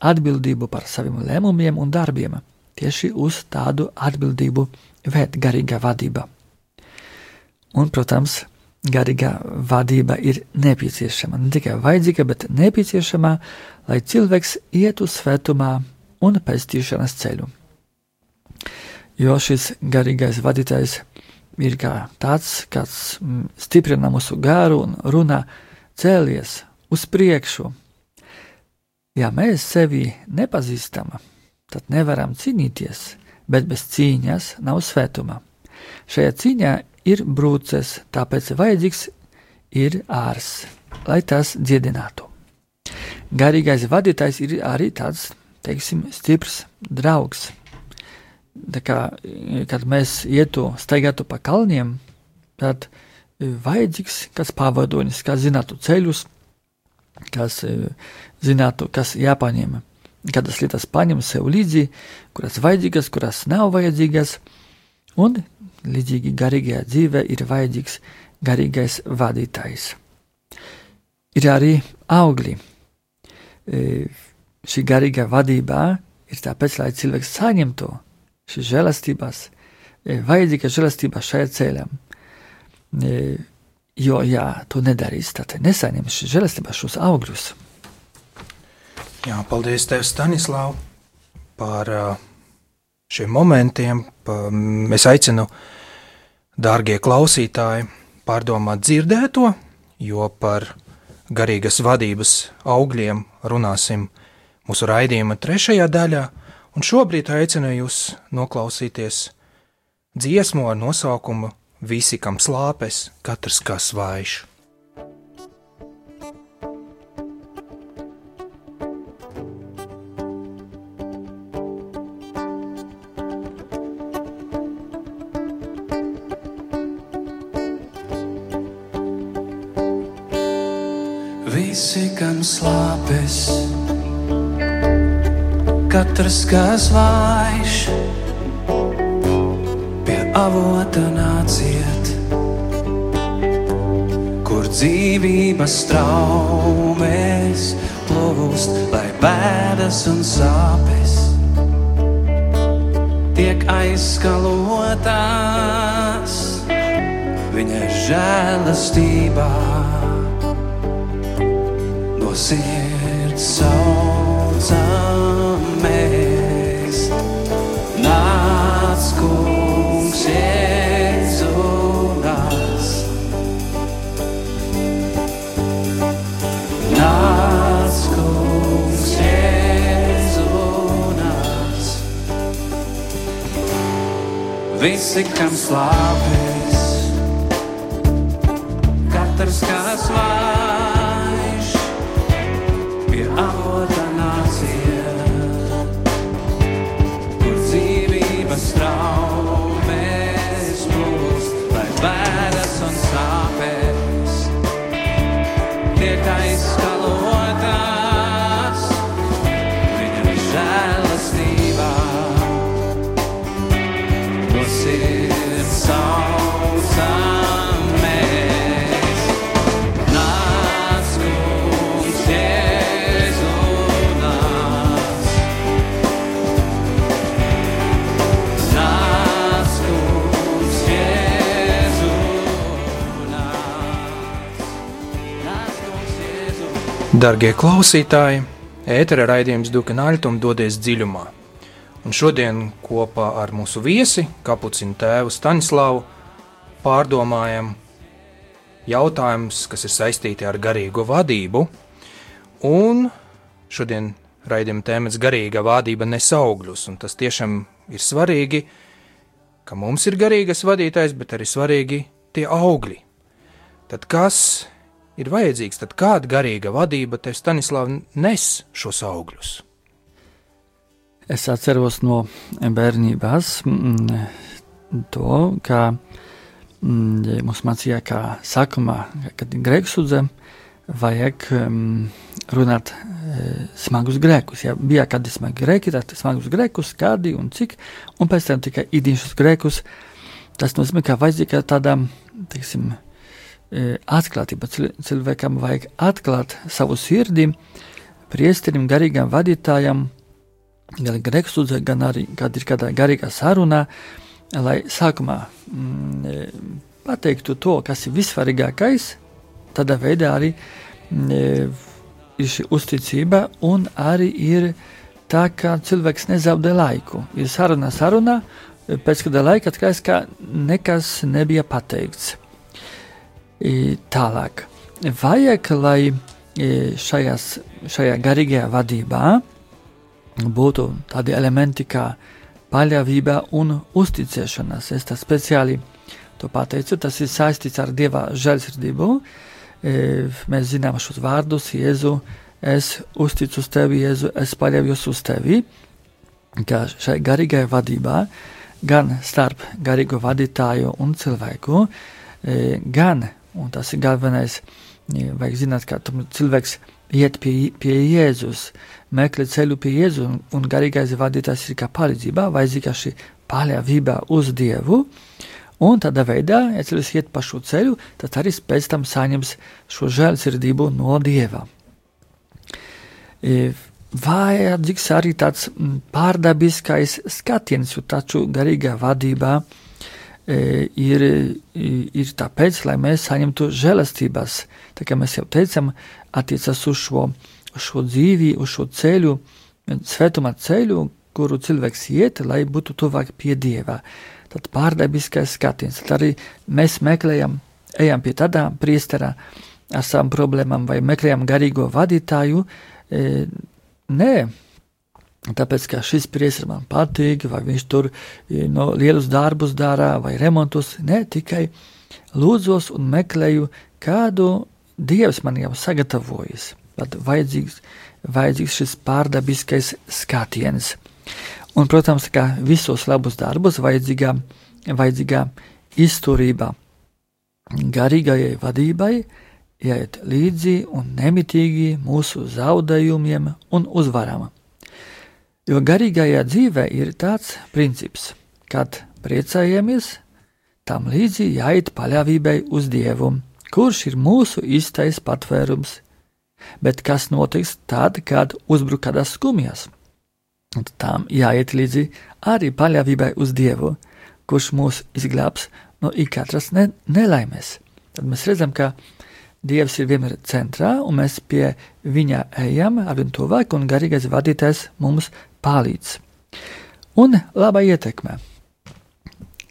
atbildību par saviem lēmumiem un darbiem. Tieši uz tādu atbildību vēd garīgā vadība. Un, protams, garīgā vadība ir nepieciešama, ne tikai vajadzīga, bet nepieciešama, lai cilvēks ietu svētumā un pestīšanas ceļu. Jo šis garīgais vadītājs ir kā tāds, kāds stiprina mūsu garu un runā cēlies uz priekšu. Ja mēs sevi nepazīstam, tad nevaram cīnīties, bet bez cīņas nav svētuma. Šajā cīņā ir brūces, tāpēc vajadzīgs ir ārs, lai tas dziedinātu. Garīgais vadītājs ir arī tāds, teiksim, stiprs draugs. Tā kā, kad mēs staigātu pa kalniem, tad vajadzīgs kāds pavadonis, kas zinātu ceļus, kas zinātu, kas jāpaņem, kādas lietas paņem sev līdzi, kuras vajadzīgas, kuras nav vajadzīgas, un līdzīgi garīgajā dzīvē ir vajadzīgs garīgais vadītājs. Ir arī augļi. Šī garīgā vadībā ir tāpēc, lai cilvēks saņemtu šīs žēlastības, vajadzīga žēlastība šajā ceļā. Jo, ja to nedarīs, tad nesaņems šīs žēlastības, šos augļus. Jā, paldies tev, Stanislav, par šiem momentiem. Es aicinu, dārgie klausītāji, pārdomāt dzirdēto, jo par garīgas vadības augļiem runāsim mūsu raidījuma 3. daļā, un šobrīd aicinu jūs noklausīties dziesmu ar nosaukumu Visi, kam slāpes, katrs kā svaiš. Visi, kam slāpes, katrs kā svaiš, pie avota nāciet, kur dzīvības traumēs plūst, lai bēdas un sāpes tiek aizskalotas viņa žēlastībā. No sirds saucamies, nāc, Kungs, Jēzu nāc. Nāc, Kungs, Jēzu nāc. Visi, kam slāpes, katrs kā svaiš, pie avota nāciet, kur dzīvības traumēs plūst, lai bēdas un sāpes tiek aizskalotas viņa žēlastībā. No sirds saucamies, nāc, Kungs, Jēzu nāc. Nāc, Kungs, Jēzu nāc. Nāc, Kungs, Jēzu. Dargie klausītāji, ētera raidījums Dukenaļtum dodies dziļumā. Un šodien kopā ar mūsu viesi, kapucinu tēvu Stanislavu, pārdomājam jautājumus, kas ir saistīti ar garīgo vadību. Un šodien raidījuma tēmats garīga vadība nes augļus, un tas tiešām ir svarīgi, ka mums ir garīgas vadītājs, bet arī svarīgi tie augļi. Tad kas ir vajadzīgs, tad kāda garīga vadība tev, Stanislav, nes šos augļus? Es atceros no bērnībās to, ka mums mācīja, ka sākumā, kad ir grēksudze, vajag runāt smagus grēkus. Ja bija kādi smagi grēki, tad smagus grēkus, kādi un cik, un pēc tam tikai īdiņšus grēkus. Tas nozīmē, ka vajadzīga tāda, teiksim, atklātība. Cilvēkam vajag atklāt savu sirdi priesterim, garīgam vadītājam, gan grēksūdzē, gan arī, kad ir kādā garīgā sarunā, lai sākumā pateiktu to, kas ir vissvarīgākais, tādā veidā arī ir šī uzticība un arī ir tā, ka cilvēks nezaudē laiku. Ir saruna, pēc kāda laika atklājas, ka nekas nebija pateikts. Tālāk. Vajag, lai šajā garīgajā vadībā būtu tādi elementi kā paļāvība un uzticēšanās. Es tā speciāli to pateicu, tas ir saistīts ar Dieva žēlsirdību. Mēs zinām šos vārdus, Jēzu, es uzticu uz tevi, Jēzu, es paļaujos uz tevi, ka šai garīgajā vadībā, gan starp garīgo vadītāju un cilvēku, gan, un tas ir galvenais, vajag zināt, ka cilvēks iet pie Jēzus, meklē ceļu pie Jēzu, un garīgais vadītājs ir kā palīdzība, vajadzīga šī paļāvība uz Dievu, un tādā veidā, ja cilvēks iet pa šo ceļu, tad arī pēc tam saņems šo žēlsirdību no Dieva. Vajadzīgs arī tāds pārdabiskais skatiens, jo taču garīgā vadībā ir tāpēc, lai mēs saņemtu žēlastības. Tā kā mēs jau teicam, attiecas uz šo dzīvi, uz šo ceļu, svētumā ceļu, kuru cilvēks iet, lai būtu tuvāk pie Dieva. Tad pārdabiskais skatiens. Tad arī mēs ejam pie tādā priestera ar savām problēmām vai meklējam garīgo vadītāju, nē, tāpēc, ka šis priesteris man patīk, vai viņš tur lielus darbus dara, vai remontus, ne, tikai lūdzos un meklēju, kādu Dievs man jau sagatavojis. Tad vajadzīgs šis pārdabiskais skatiens. Un, protams, ka visos labus darbus vajadzīgā izturība garīgajai vadībai, jāiet līdzi un nemitīgi mūsu zaudējumiem un uzvaram. Jo garīgajā dzīvē ir tāds princips, kad priecājamies, tam līdzi jāiet paļāvībai uz Dievu, kurš ir mūsu īstais patvērums. Bet kas notiks tad, kad uzbruk kādas skumjas? Tam jāiet līdzi arī paļāvībai uz Dievu, kurš mūs izglābs no ikatras nelaimes. Tad mēs redzam, ka Dievs ir vienmēr centrā, un mēs pie viņa ejam ar vien tuvāk, un garīgais vadītājs mums palīdz. Un laba ietekme.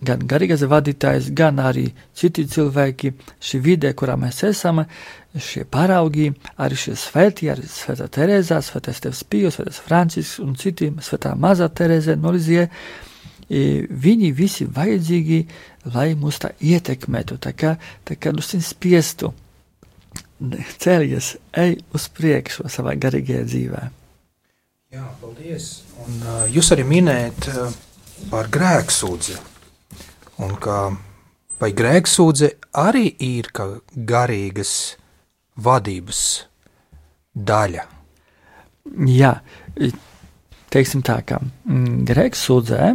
Gan garīgais vadītājs, gan arī citi cilvēki, šī vide, kurā mēs esam, šie paraugi, arī šie svētī, arī Svētā Terēzā, Svētais Tevs Pijos, Svētais Francisks un citi, Svētā Mazā Terēze no Lizie, viņi visi vajadzīgi, lai mūs tā ietekmētu, tā kā spiestu cēlies, ej uz priekšu savā garīgajā dzīvē. Jā, paldies. Un jūs arī minējat par grēksūdzi. Un vai grēksūdze arī ir kā garīgas vadības daļa? Jā, teiksim tā, ka grēksūdzē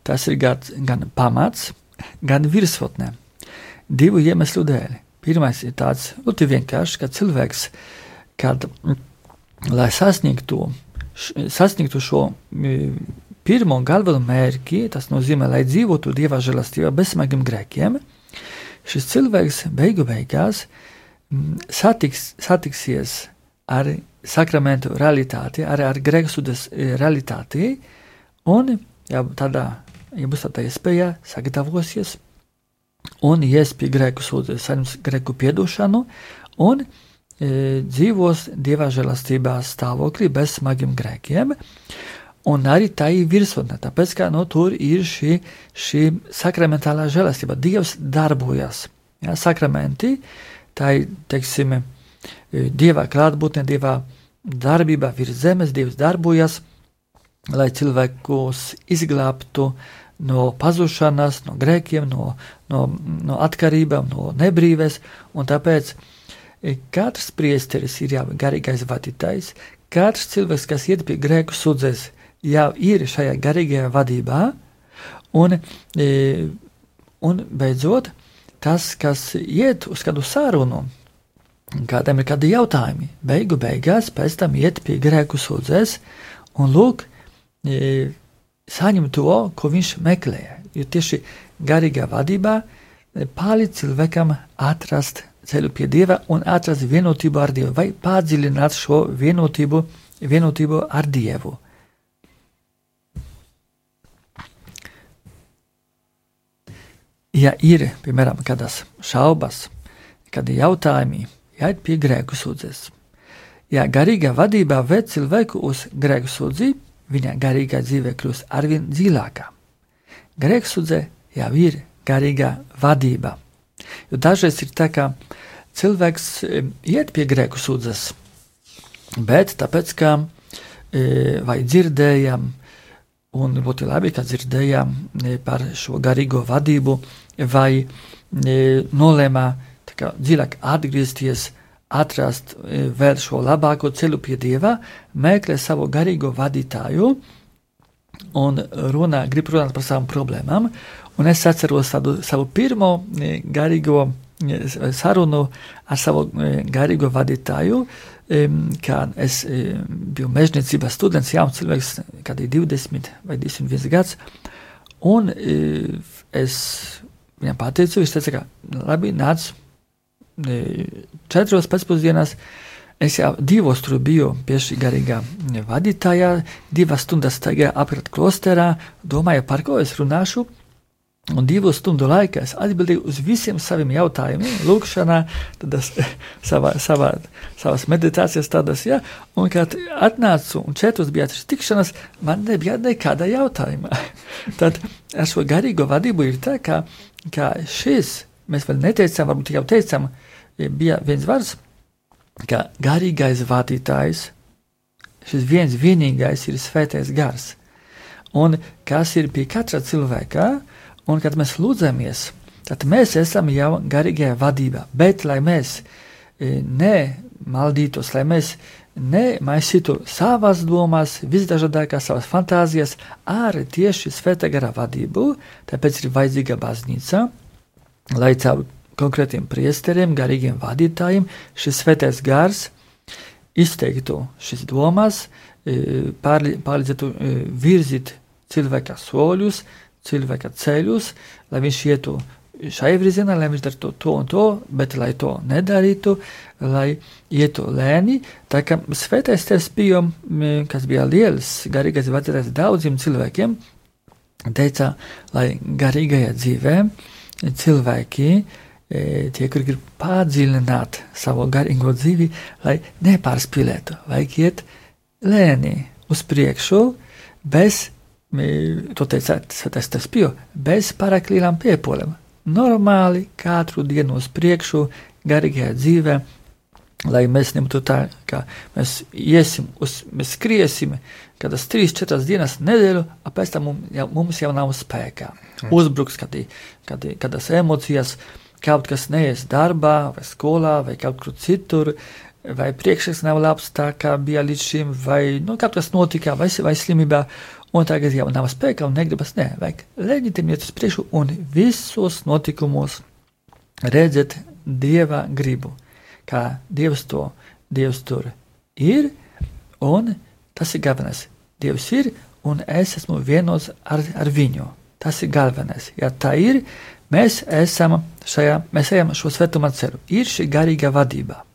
tas ir gan pamats, gan virsotnē. Divu iemeslu dēļ. Pirmais ir tāds ļoti vienkārši, ka cilvēks, lai sasniegtu šo pirmo galveno mērķi, tas nozīmē, lai dzīvotu Dieva žēlastībā bez smagiem grēkiem, šis cilvēks beigās satiksies ar sakramentu realitāti, arī ar grēksūdzes realitāti, un būs tāda iespēja sagatavosies un ies pie grēku sūdzes, saņems grēku piedošanu un dzīvos Dieva žēlastībā stāvoklī bez smagiem grēkiem. Un arī tā ir virsotne, tāpēc, ka tur ir šī sakramentālā žēlastība. Dievs darbojas. Ja, sakramenti, tā ir, teiksim, Dieva klātbūtne, Dieva darbība virs zemes, Dievs darbojas, lai cilvēkus izglābtu no pazušanas, no grēkiem, no atkarībām, no nebrīves, un tāpēc katrs priesteris ir jau garīgais vadītājs, katrs cilvēks, kas iet pie grēku sūdzes, jau ir šajā garīgajā vadībā, un beidzot, tas, kas iet uz kādu sarunu, kādam ir kādi jautājumi, beigās pēc tam iet pie grēku sūdzēs un lūk, saņem to, ko viņš meklēja. Jo tieši garīgā vadībā palīdz cilvēkam atrast ceļu pie Dieva un atrast vienotību ar Dievu, vai padziļināt šo vienotību ar Dievu. Ja ir, piemēram, kādas šaubas, kādi jautājumi, jāiet pie grēku sūdzes. Ja garīgā vadībā ved cilvēku uz grēku sūdzi, viņa garīgā dzīve kļūst arvien dziļākā. Grēku sūdze jau ir garīgā vadība. Jo dažreiz ir tā, ka cilvēks iet pie grēku sūdzes, bet tāpēc, ka vai dzirdējam, un ļoti labi, ka dzirdējām par šo garīgo vadību, vai nolēmā dziļāk atgriezties, atrast vēl šo labāko ceļu pie Dieva, meklē savu garīgo vadītāju un grib runāt par savām problēmām. Un es atceros savu pirmo garīgo sarunu ar savu garīgo vadītāju, kad es biju mežniecības students, jauns cilvēks, kādi 20 vai 21 gads, un es viņam pateicu, viņš teica, ka labi, nāc 4 pēcpusdienās, es jau 2 tur biju pie šī garīgā vadītājā, 2 stundas staigāju apkārt klosterā, domāju, par ko es runāšu, un 2 stundu laikā es atbildēju uz visiem saviem jautājumiem, lūkšanā, tādas savas meditācijas tādas, ja, un kad atnācu un 4 bija tikšanas, man nebija nekāda jautājuma. Tad ar šo garīgo vadību ir tā, ka šis, mēs vēl neteicām, varbūt jau teicām, bija viens vārds, ka garīgais vadītājs, šis vienīgais ir svētais gars. Un kas ir pie katra cilvēka, un kad mēs lūdzamies, tad mēs esam jau garīgajā vadībā, bet lai mēs nemaldītos, lai mēs nemaisītu savas domas, visdažādākās savas fantāzijas ar tieši svētā gara vadību, tāpēc ir vajadzīga baznīca, lai caur konkrētiem priesteriem, garīgiem vadītājiem, šis svētais gars izteiktu šīs domas, palīdzētu virzīt cilvēka soļus, cilvēka ceļus, lai viņš ietu šai virzienā, lai viņš darītu to un to, bet lai to nedarītu, lai ietu lēni. Tā kā svētais tevs bija, kas bija liels garīgais vadītājs daudziem cilvēkiem, teica, lai garīgajā dzīvē cilvēki, tie, kuri grib padziļināt savu garīgo dzīvi, lai nepārspīlētu, vajag iet lēni uz priekšu, bez to teica svētais tevs Pio, bez pārāk lielām piepolēm. Normāli katru dienu uz priekšu garīgajā dzīvē, lai mēs nebūtu tā, ka mēs mēs skriesim kādas 3-4 dienas nedēļu, pēc tam mums jau nav spēkā. Uzbruks kādas emocijas, kaut kas neies darbā, vai skolā, vai kaut kur citur, vai priekšnieks nav labs tā, kā bija līdz šim, vai kaut kas notika, vai slimībā, un tagad jau nav spēka un negribas, vajag leģitim iet uz priekšu un visos notikumos redzēt Dieva gribu, kā Dievs tur ir, un tas ir galvenais. Dievs ir, un es esmu vienos ar viņu. Tas ir galvenais. Ja tā ir, mēs ejam šo svētumā ceļu. Ir šī garīga vadība.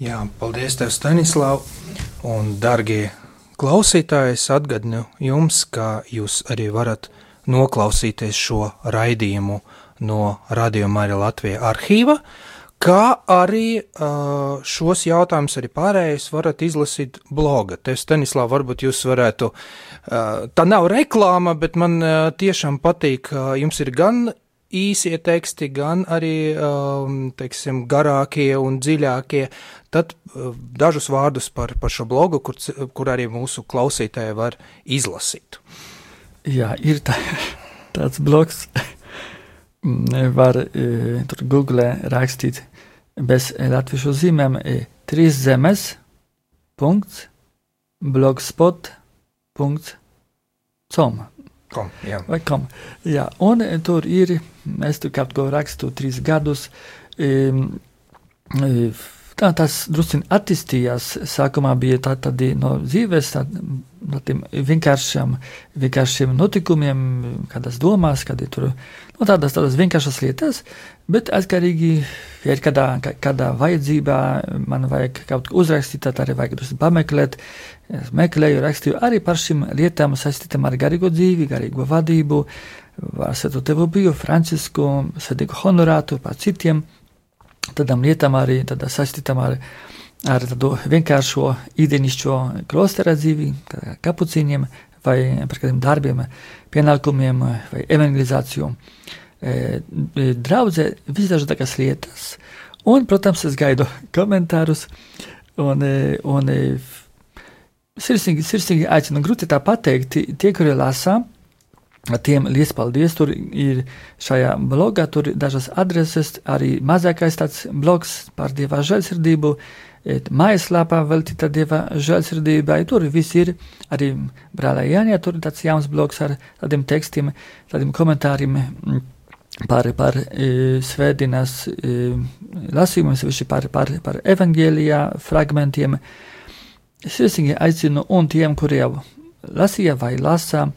Jā, paldies tev, Stanislav, un dargie klausītāji, es atgādinu jums, ka jūs arī varat noklausīties šo raidījumu no Radio Marija Latvija arhīva, kā arī šos jautājumus arī pārējais varat izlasīt bloga. Tev, Stanislav, varbūt jūs varētu, tā nav reklāma, bet man tiešām patīk, jums ir gan īsie teksti, gan arī, teiksim, garākie un dziļākie, tad dažus vārdus par šo blogu, kur arī mūsu klausītāji var izlasīt. Jā, ir tāds blogs, var tur Google rakstīt bez latviešu zīmēm 3zemes.blogspot.com vai kom. Jā, un tur ir, es tur kaut ko rakstu 3 gadus, tas drusciņi attīstījās. Sākumā bija tādi no dzīves, no tiem vienkāršiem notikumiem, kādās domās, kādi tur, tādas vienkāršas lietas, bet atkarīgi, ja ir kādā vajadzībā, man vajag kaut ko uzrakstīt, tad arī vajag drusciņi pameklēt, meklēju, rakstīju arī par šīm lietām saistītām ar garīgo dzīvi, garīgo vadību, ar Svēto Tevu biju, Francisku, Svētīgu Honorātu, par citiem, tādām lietām arī saistītām ar tādu vienkāršo ikdienišķo klostera dzīvi, kā kapucīniem, vai par kādiem darbiem, pienākumiem, vai evangelizāciju. Draudzē visdažādākās lietas, un, protams, es gaidu komentārus, un sirsnīgi aicinu, grūti tā pateikt, tie, kuri lasa, tiem liels paldies, tur ir šajā blogā, tur ir dažas adreses, arī mazākais tāds blogs par Dieva žēlsirdību, mājaslapā veltīta Dieva žēlsirdībai, tur viss ir, arī brālē Jānijā, tur ir tāds jauns blogs ar tādiem tekstiem, tādiem komentāriem par svētdienas lasījumiem, sevišķi par evangēlijā fragmentiem. Sirsnīgi aicinu, un tiem, kuri jau lasīja vai lasa,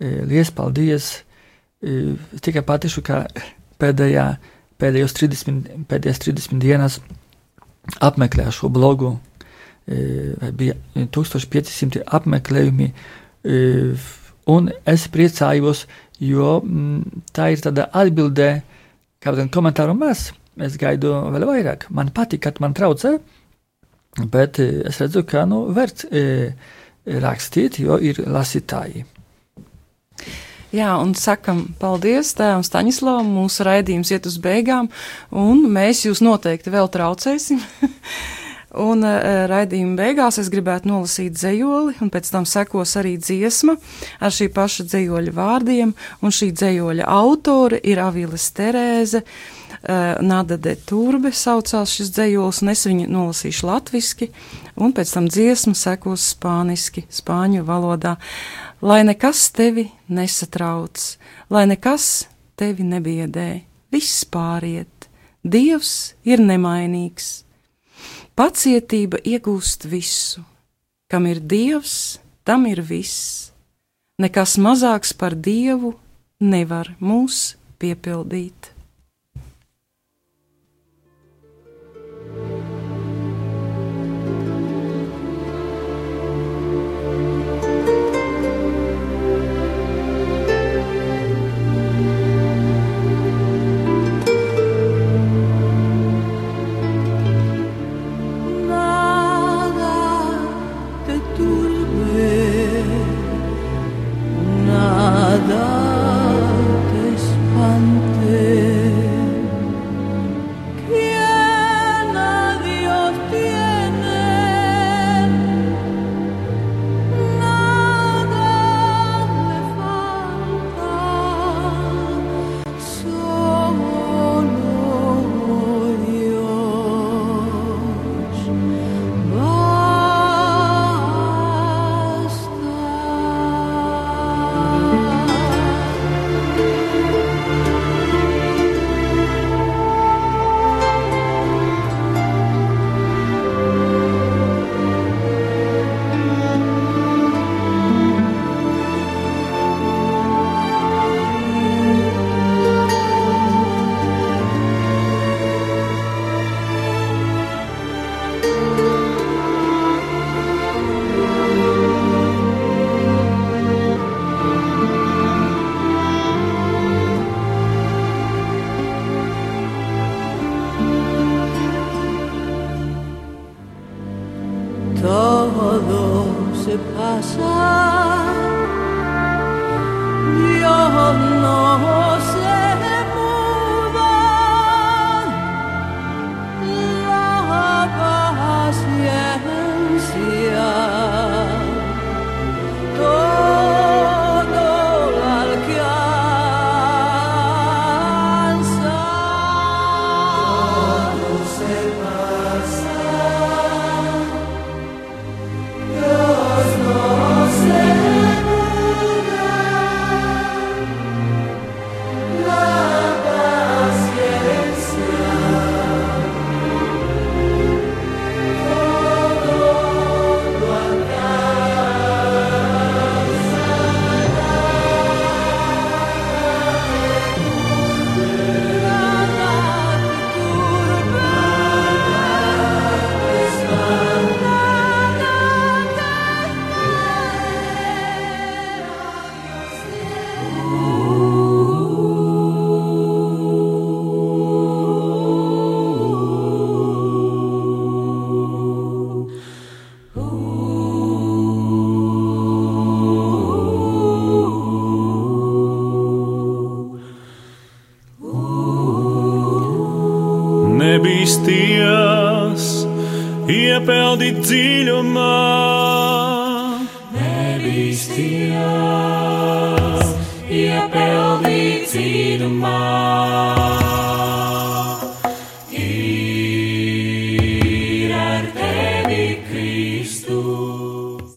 liels paldies. Tikai patīšu, ka pēdējās 30 dienas apmeklēju šo blogu, vai bija 1500 apmeklējumi, un es priecājos, jo tā ir tāda atbildē, kādam komentāru maz, es gaidu vēl vairāk. Man patīk, kad man traucē, bet es redzu, ka vērts rakstīt, jo ir lasītāji. Jā, un sakam paldies tēvam Staņislavam, mūsu raidījums iet uz beigām, un mēs jūs noteikti vēl traucēsim. Un raidījuma beigās es gribētu nolasīt dzejoli, un pēc tam sekos arī dziesma ar šī paša dzejoļa vārdiem, un šī dzejoļa autore ir Aviles Terēze, Nada de Turbe saucās šis dzejols, un es viņu nolasīšu latviski, un pēc tam dziesma sekos spāniski, spāņu valodā. Lai nekas tevi nesatrauc, lai nekas tevi nebiedē, viss pāriet, Dievs ir nemainīgs. Pacietība iegūst visu, kam ir Dievs, tam ir viss. Nekas mazāks par Dievu nevar mūs piepildīt. nebīsties, iepeldīt dziļumā. Nebīsties, iepeldīt dziļumā.